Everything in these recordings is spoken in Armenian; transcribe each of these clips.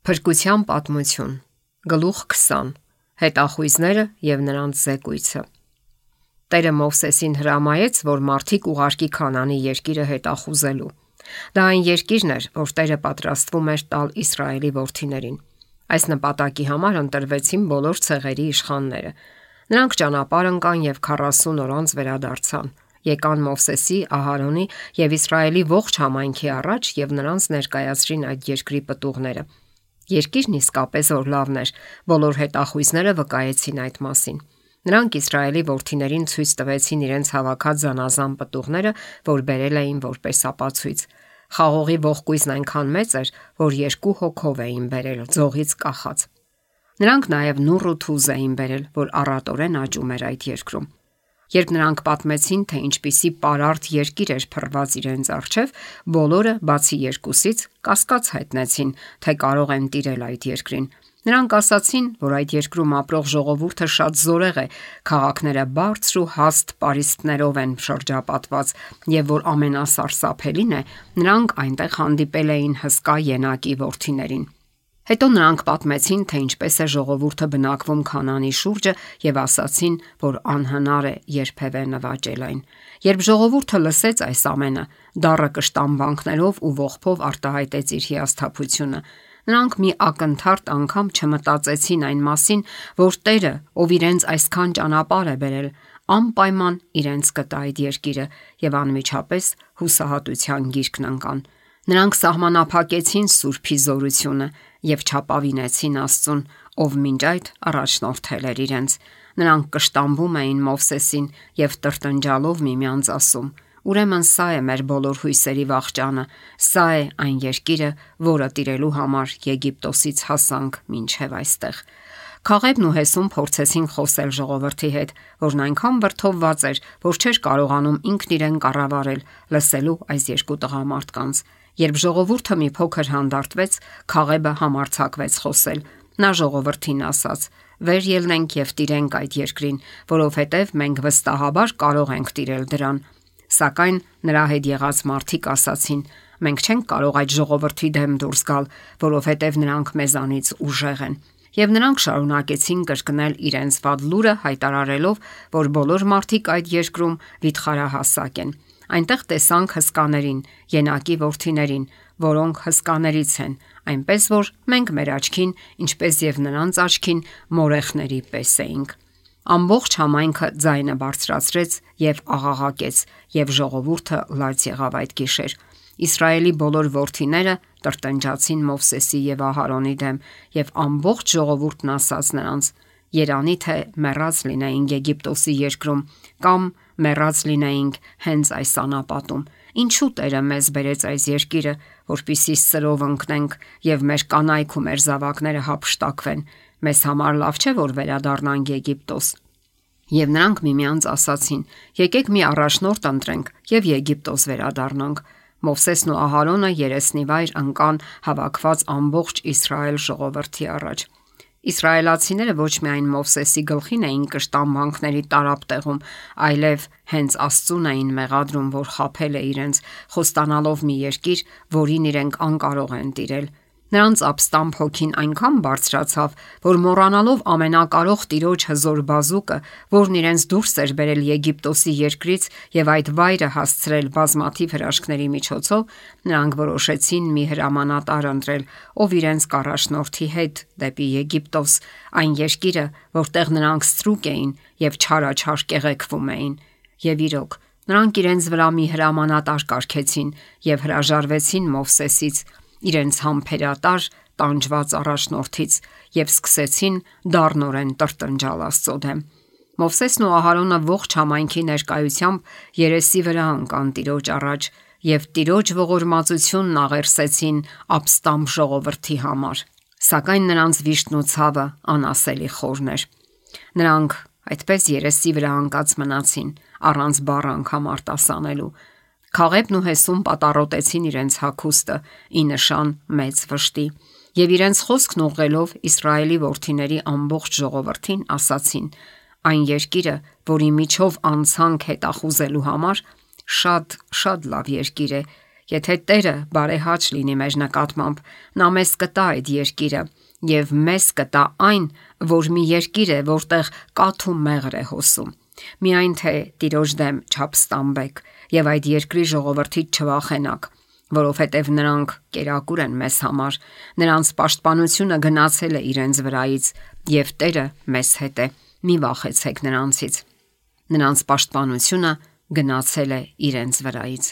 Փրկության պատմություն, գլուխ 20. Հետախույզները եւ նրանց զեկույցը։ Տերը Մովսեսին հրամայեց, որ մարդիկ ուղարկի Քանանի երկիրը հետախուզելու։ Դա այն երկիրն էր, որ Տերը պատրաստվում էր տալ Իսրայելի որդիներին։ Այս նպատակի համար ընտրվեցին բոլոր ցեղերի իշխանները։ Նրանք ճանապարհ ընկան եւ 40 օր անց վերադարձան։ Եկան Մովսեսի, Ահարոնի եւ Իսրայելի ողջ համայնքի առաջ եւ նրանց ներկայացրին այդ երկրի պտուղները։ Երկիրն իսկապես որ լավն էր, բոլոր հետախույզները վկայեցին այդ մասին։ Նրանք Իսրայելի որդիներին ցույց տվեցին իրենց հավաքած զանազան պտուղները, որ բերել էին որպես ապացույց։ Խաղողի ողկույզն այնքան մեծ էր, որ 2 հոգով էին բերել, ձողից կախած։ Նրանք նաև նուռ ու թուզ էին բերել, որ առատորեն աճում էր այդ երկրում։ Երբ նրանք պատմեցին, թե ինչպիսի պարարտ երկիր էր փռված իրենց առջև, բոլորը, բացի 2-ից, կասկած հայտնեցին, թե կարող են տիրել այդ երկրին։ Նրանք ասացին, որ այդ երկրում ապրող ժողովուրդը շատ զորեղ է, քաղաքները բարձր ու հաստ պարիսպներով են շրջապատված, եւ որ ամենասարսափելին է, նրանք այնտեղ հանդիպել էին հսկա ենակի որդիներին։ Հետո նրանք պատմեցին, թե ինչպես է ժողովուրդը բնակվում Քանանի շուրջը եւ ասացին, որ անհնար է երբևէ նվաճել այն։ Երբ ժողովուրդը լսեց այս ամենը, դառը կշտամբանքներով ու ողբով արտահայտեց իր հիասթափությունը։ Նրանք մի ակնթարթ անգամ չմտածեցին այն մասին, որ Տերը, ով իրենց այսքան ճանապարհ է բերել, անպայման իրենց կտա այդ երկիրը եւ անմիջապես հուսահատության գիրկն ընկան։ Նրանք սահմանափակեցին Սուրբի զորությունը եւ չապավինեցին Աստծուն, ով մինչ այդ առաջնորդել էր իրենց։ Նրանք կշտամբում էին Մովսեսին եւ տրտնջալով միմյանց ասում. «Ուրեմն սա է մեր բոլոր հույսերի վախճանը, սա է այն երկիրը, որը տիրելու համար Եգիպտոսից հասանք մինչև այստեղ»։ Քաղեբն ու Հեսուն փորձեցին խոսել ժողովրդի հետ, որն այնքան վրդովված էր, որ չէր կարողանում ինքն իրեն կառավարել, լսելու այս երկու տղամարդկանց։ Երբ ժողովուրդը մի փոքր հանդարտվեց, Քաղեբը համարձակվեց խոսել։ Նա ժողովրդին ասաց. «Վեր ելնենք եւ տիրենք այդ երկրին, որովհետեւ մենք վստահաբար կարող ենք տիրել դրան»։ Սակայն նրա հետ եղած մարդիկ ասացին. «Մենք չենք կարող այդ ժողովրդի դեմ դուրս գալ, որովհետեւ նրանք մեզանից ուժեղ են»։ Եվ նրանք շարունակեցին կրկնել իրենց վատ լուրը, հայտարարելով, որ բոլոր մարդիկ այդ երկրում վիթխարահասակ են։ Այնտեղ տեսանք հսկաներին, ենակի որդիներին, որոնք հսկաներից են, այնպես որ մենք մեր աչքին, ինչպես եւ նրանց աչքին, մորեխների պես էինք։ Ամբողջ համայնքը ձայնը բարձրացրեց եւ աղաղակեց, եւ ժողովուրդը լաց եղավ այդ գիշեր։ Իսրայելի բոլոր որդիները տրտնջացին Մովսեսի եւ Ահարոնի դեմ, եւ ամբողջ ժողովուրդն ասաց նրանց. «Երանի թե մեռած լինեինք Եգիպտոսի երկրում, կամ մեռած լինեինք հենց այս անապատում։ Ինչու Տերը մեզ բերեց այս երկիրը, որպեսզի սրով ընկնենք եւ մեր կանայք ու մեր զավակները հափշտակվեն։ Մեզ համար լավ չէ, որ վերադառնանք Եգիպտոս»։ Եվ նրանք միմյանց ասացին. «Եկեք մի առաջնորդ ընտրենք եւ Եգիպտոս վերադառնանք»։ Մովսեսն ու Ահարոնը երեսնիվայր ընկան հավաքված ամբողջ Իսրայել ժողովրդի առաջ։ Իսրայելացիները ոչ միայն Մովսեսի գլխին էին կշտամբանքների տարապ տեղում, այլև հենց Աստծուն էին մեղադրում, որ խաբել է իրենց, խոստանալով մի երկիր, որին իրենք անկարող են տիրել։ Նրանց ապստամբ հոգին այնքան բարձրացավ, որ մոռանալով ամենակարող Տիրոջ հզոր բազուկը, որն իրենց դուրս էր բերել Եգիպտոսի երկրից եւ այդ վայրը հասցրել բազմաթիվ հրաշքների միջոցով, նրանք որոշեցին մի հրամանատար ընտրել, ով իրենց կառաջնորդի հետ դեպի Եգիպտոս, այն երկիրը, որտեղ նրանք ստրուկ էին եւ չարաչար կեղեքվում էին։ Եվ իրոք, նրանք իրենց վրա մի հրամանատար կարգեցին եւ հրաժարվեցին Մովսեսից, իրենց համբերատար տանջված առաջնորդից, եւ սկսեցին դառնորեն տրտնջալ Աստծո դեմ։ Մովսեսն ու Ահարոնը ողջ համայնքի ներկայությամբ երեսի վրա ընկան Տիրոջ առաջ եւ Տիրոջ ողորմածությունն աղերսեցին ապստամբ ժողովրդի համար։ Սակայն նրանց վիշտն ու ցավը անասելի խորն էր։ Նրանք այդպես երեսի վրա ընկած մնացին, առանց բառ անգամ արտասանելու։ Քաղեբն ու Հեսուն պատառոտեցին իրենց հագուստը ի նշան մեծ վշտի եւ իրենց խոսքն ուղղելով Իսրայելի որդիների ամբողջ ժողովրդին ասացին. «Այն երկիրը, որի միջով անցանք հետախուզելու համար, շատ լավ երկիր է Եթե Տերը բարեհաճ լինի մեր նկատմամբ, նա մեզ կտա այդ երկիրը եւ մեզ կտա այն, որ մի երկիր է, որտեղ կաթ ու մեղր է հոսում։ Միայն թե Տիրոջ դեմ չապստամբեք եւ այդ երկրի ժողովրդից չվախենաք, որովհետև նրանք կերակուր են մեզ համար, նրանց պաշտպանությունը գնացել է իրենց վրայից եւ Տերը մեզ հետ է։ Մի վախեցեք նրանցից։ Նրանց պաշտպանությունը գնացել է իրենց վրայից։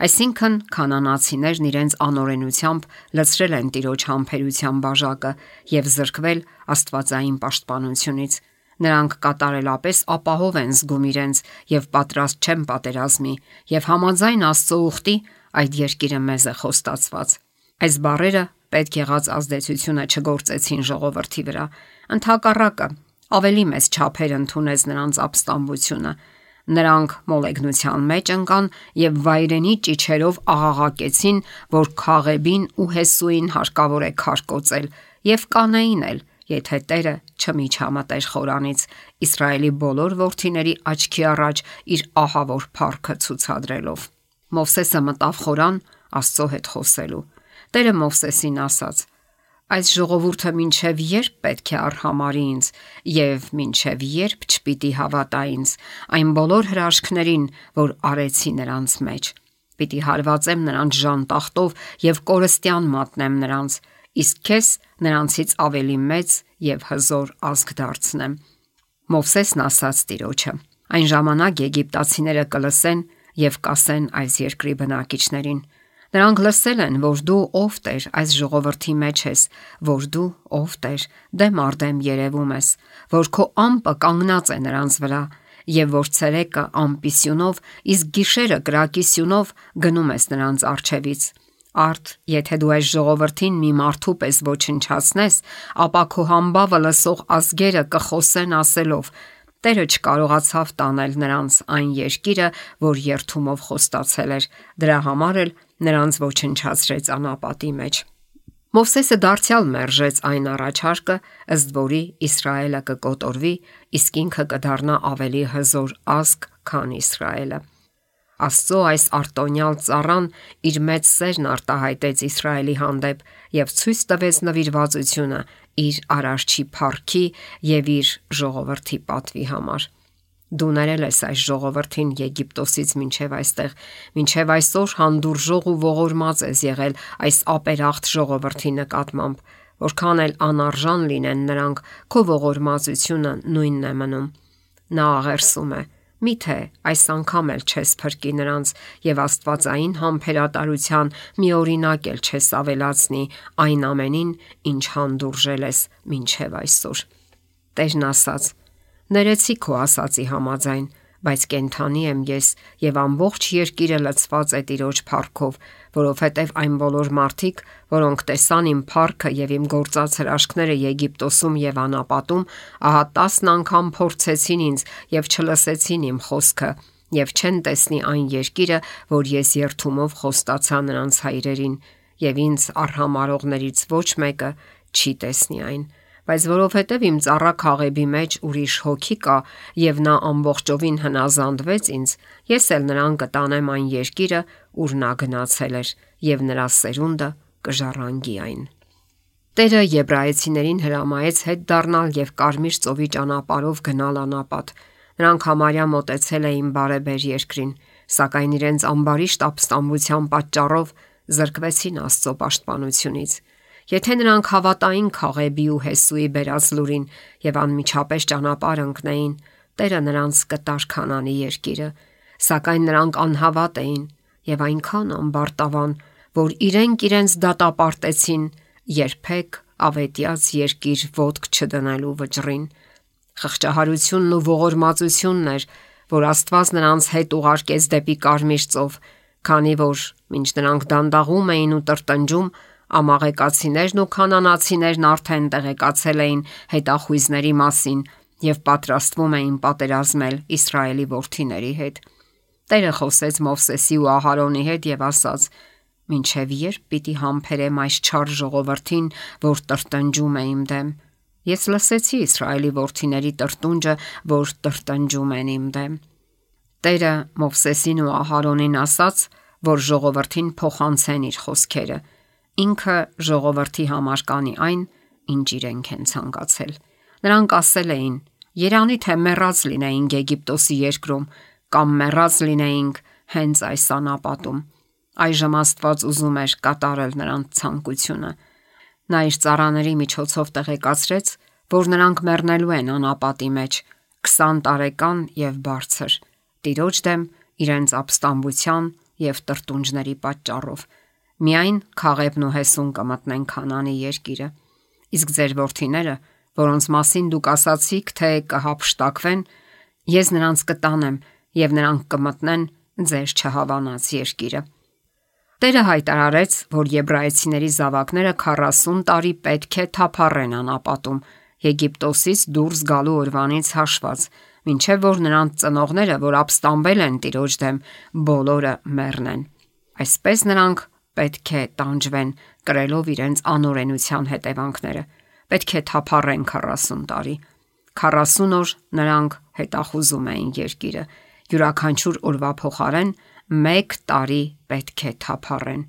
Այսինքն քանանացիներն իրենց անօրենությամբ լցրել են Տիրոջ համբերության բաժակը եւ զրկվել աստվածային պաշտպանությունից։ Նրանք կատարելապես ապահով են զգում իրենց եւ պատրաստ չեն պատերազմի եւ համաձայն Աստծո ուխտի այդ երկիրը մեզ է խոստացված։ Այս բառերը պետք եղած ազդեցությունը չգործեցին ժողովրդի վրա։ Ընդհակառակը, ավելի մեծ չափեր ընդունեց նրանց ապստամբությունը։ Նրանք մոլեգնության մեջ ընկան եւ վայրենի ճիչերով աղաղակեցին, որ Քաղեբին ու Հեսուին հարկավոր է քարկոծել եւ կանեին էլ, եթե Տերը չմիջամտեր խորանից, Իսրայելի բոլոր որդիների աչքի առաջ իր ահավոր փառքը ցուցադրելով։ Մովսեսը մտավ խորան Աստծո հետ խոսելու։ Տերը Մովսեսին ասաց. «Այս ժողովուրդը մինչև երբ պետք է արհամարի ինձ եւ մինչև երբ չպիտի հավատա ինձ այն բոլոր հրաշքներին, որ արեցի նրանց մեջ։ Պիտի հարվածեմ նրանց ժանտախտով եւ կորստյան մատնեմ նրանց, իսկ քեզ նրանցից ավելի մեծ եւ հզոր ազգ դարձնեմ»։ Մովսեսն ասաց Տիրոջը. «Այն ժամանակ եգիպտացիները կլսեն եւ կասեն այս երկրի բնակիչներին. Նրանք լսել են, որ դու ով Տեր այս ժողովրդի մեջ ես, որ դու ով Տեր դեմ արդեմ երևում ես, որ քո ամպը կանգնած է նրանց վրա եւ որ ցերեկը ամպի սյունով, իսկ գիշերը կրակի սյունով գնում ես նրանց առջևից։ Արդ, եթե դու այս ժողովրդին մի մարդու պես ոչնչացնես, ապա քո համբավը լսող ազգերը կխոսեն ասելով. Տերը չկարողացավ տանել նրանց այն երկիրը, որ երթումով խոստացել էր, դրա համար էլ նրանց ոչնչացրեց անապատի մեջ»։ Մովսեսը դարձյալ մերժեց այն առաջարկը, ըստ որի Իսրայելը կկոտորվի, իսկ ինքը կդառնա ավելի հզոր ազգ, քան Իսրայելը։ Աստծո այս արտոնյալ ծառան իր մեծ սերն արտահայտեց Իսրայելի հանդեպ եւ ցույց տվեց նվիրվածությունը իր արարչի փառքի եւ իր ժողովրդի պատվի համար։ Դու ներել ես այս ժողովրդին Եգիպտոսից մինչև այստեղ, մինչև այսօր հանդուրժող ու ողորմած ես եղել այս ապերախտ ժողովրդի նկատմամբ, որքան էլ անարժան լինեն նրանք, քո ողորմածությունը նույնն է մնում։ Նա աղերսում է. միթե այս անգամ էլ չես փրկի նրանց եւ աստվածային համբերատարության մի օրինակ էլ չես ավելացնի այն ամենին, ինչ հանդուրժել ես մինչև այսօր։ Տերն ասաց. ներեցի քո ասացի համաձայն, բայց կենթանի եմ ես եւ ամբողջ երկիրը լցված է Տիրոջ փառքով, որովհետեւ այն բոլոր մարդիկ, որոնք տեսան իմ փառքը եւ իմ գործած հրաշքները Եգիպտոսում եւ անապատում, ահա 10 անգամ փորձեցին ինձ եւ չլսեցին իմ խոսքը եւ չեն տեսնի այն երկիրը, որ ես երթումով խոստացա նրանց հայրերին, եւ ինձ արհամարողներից ոչ մեկը չի տեսնի այն։ Բայց որովհետև իմ ծառա Քաղեբի մեջ ուրիշ հոգի կա եւ նա ամբողջովին հնազանդվեց ինձ, ես էլ նրան կտանեմ այն երկիրը, ուր նա գնացել էր, եւ նրա սերունդը կժառանգի այն։ Տերը եբրայեցիներին հրամայեց հետ դառնալ եւ Կարմիր ծովի ճանապարհով գնալ անապատ։ Նրանք համարյա մոտեցել էին բարեբեր երկրին, սակայն իրենց ամբարիշտ ապստամբության պատճառով զրկվեցին Աստծո պաշտպանությունից։ Եթե նրանք հավատային Քաղեբի ու Հեսուի բերած լուրին եւ անմիջապես ճանապարհ ընկնեին, Տերը նրանց կտար Քանանի երկիրը, սակայն նրանք անհավատ էին եւ այնքան ամբարտավան, որ իրենց դատապարտեցին երբեք ավետյաց երկիր ոտք չդնելու վճռին։ Խղճահարությունն ու ողորմածությունն էր, որ Աստված նրանց հետ ուղարկեց դեպի Կարմիր ծով, քանի որ մինչ նրանք դանդաղում էին ու տրտնջում, ամաղեկացիներն ու քանանացիներն արդեն տեղեկացել էին հետախույզների մասին եւ պատրաստվում էին պատերազմել Իսրայելի որդիների հետ։ Տերը խոսեց Մովսեսի ու Ահարոնի հետ եւ ասաց. «Մինչև երբ պիտի համբերեմ այս չար ժողովրդին, որ տրտնջում է իմ դեմ։ Ես լսեցի Իսրայելի որդիների տրտունջը, որ տրտնջում են իմ դեմ»։ Տերը Մովսեսին ու Ահարոնին ասաց, որ ժողովրդին փոխանցեն իր խոսքերը։ Ինքը ժողովրդի համար կանի այն, ինչ իրենք են ցանկացել։ Նրանք ասել էին. «Երանի թե մեռած լինեինք Եգիպտոսի երկրում, կամ մեռած լինեինք հենց այս անապատում»։ Այժմ Աստված ուզում էր կատարել նրանց ցանկությունը։ Նա իր ծառաների միջոցով տեղեկացրեց, որ նրանք մեռնելու են անապատի մեջ 20 տարեկան եւ բարձր, Տիրոջ դեմ իրենց ապստամբության եւ տրտունջների պատճառով։ Միայն Քաղեբն ու Հեսուն կմտնեն Քանանի երկիրը։ Իսկ ձեր որդիները, որոնց մասին դուք ասացիք, թե կհափշտակվեն, ես նրանց կտանեմ եւ նրանք կմտնեն ձեր չհավանած երկիրը։ Տերը հայտարարեց, որ եբրայեցիների զավակները 40 տարի պետք է թափառեն անապատում, Եգիպտոսից դուրս գալու օրվանից հաշված, մինչև որ նրանց ծնողները, որ ապստամբել են Տիրոջ դեմ, բոլորը մեռնեն։ Այսպես նրանք պետք է տանջվեն, կրելով իրենց անօրենության հետևանքները։ Պետք է թափառեն 40 տարի։ 40 օր նրանք հետախուզում էին երկիրը։ Յուրաքանչյուր օրվա փոխարեն 1 տարի պետք է թափառեն։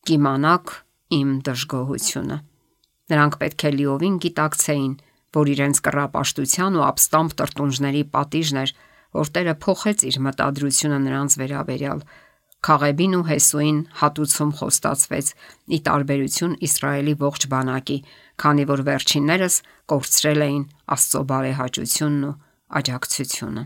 Կիմանաք իմ դժգոհությունը։ Նրանք պետք է լիովին գիտակցեին, որ իրենց կռապաշտության ու ապստամբ տրտունջների պատիժն էր, որ Տերը փոխեց իր մտադրությունը նրանց վերաբերյալ։ Քաղեբին ու Հեսուին հատուցում խոստացվեց՝ ի տարբերություն Իսրայելի ողջ բանակի, քանի որ վերջիններս կորցրել էին Աստծո բարեհաճությունն ու աջակցությունը։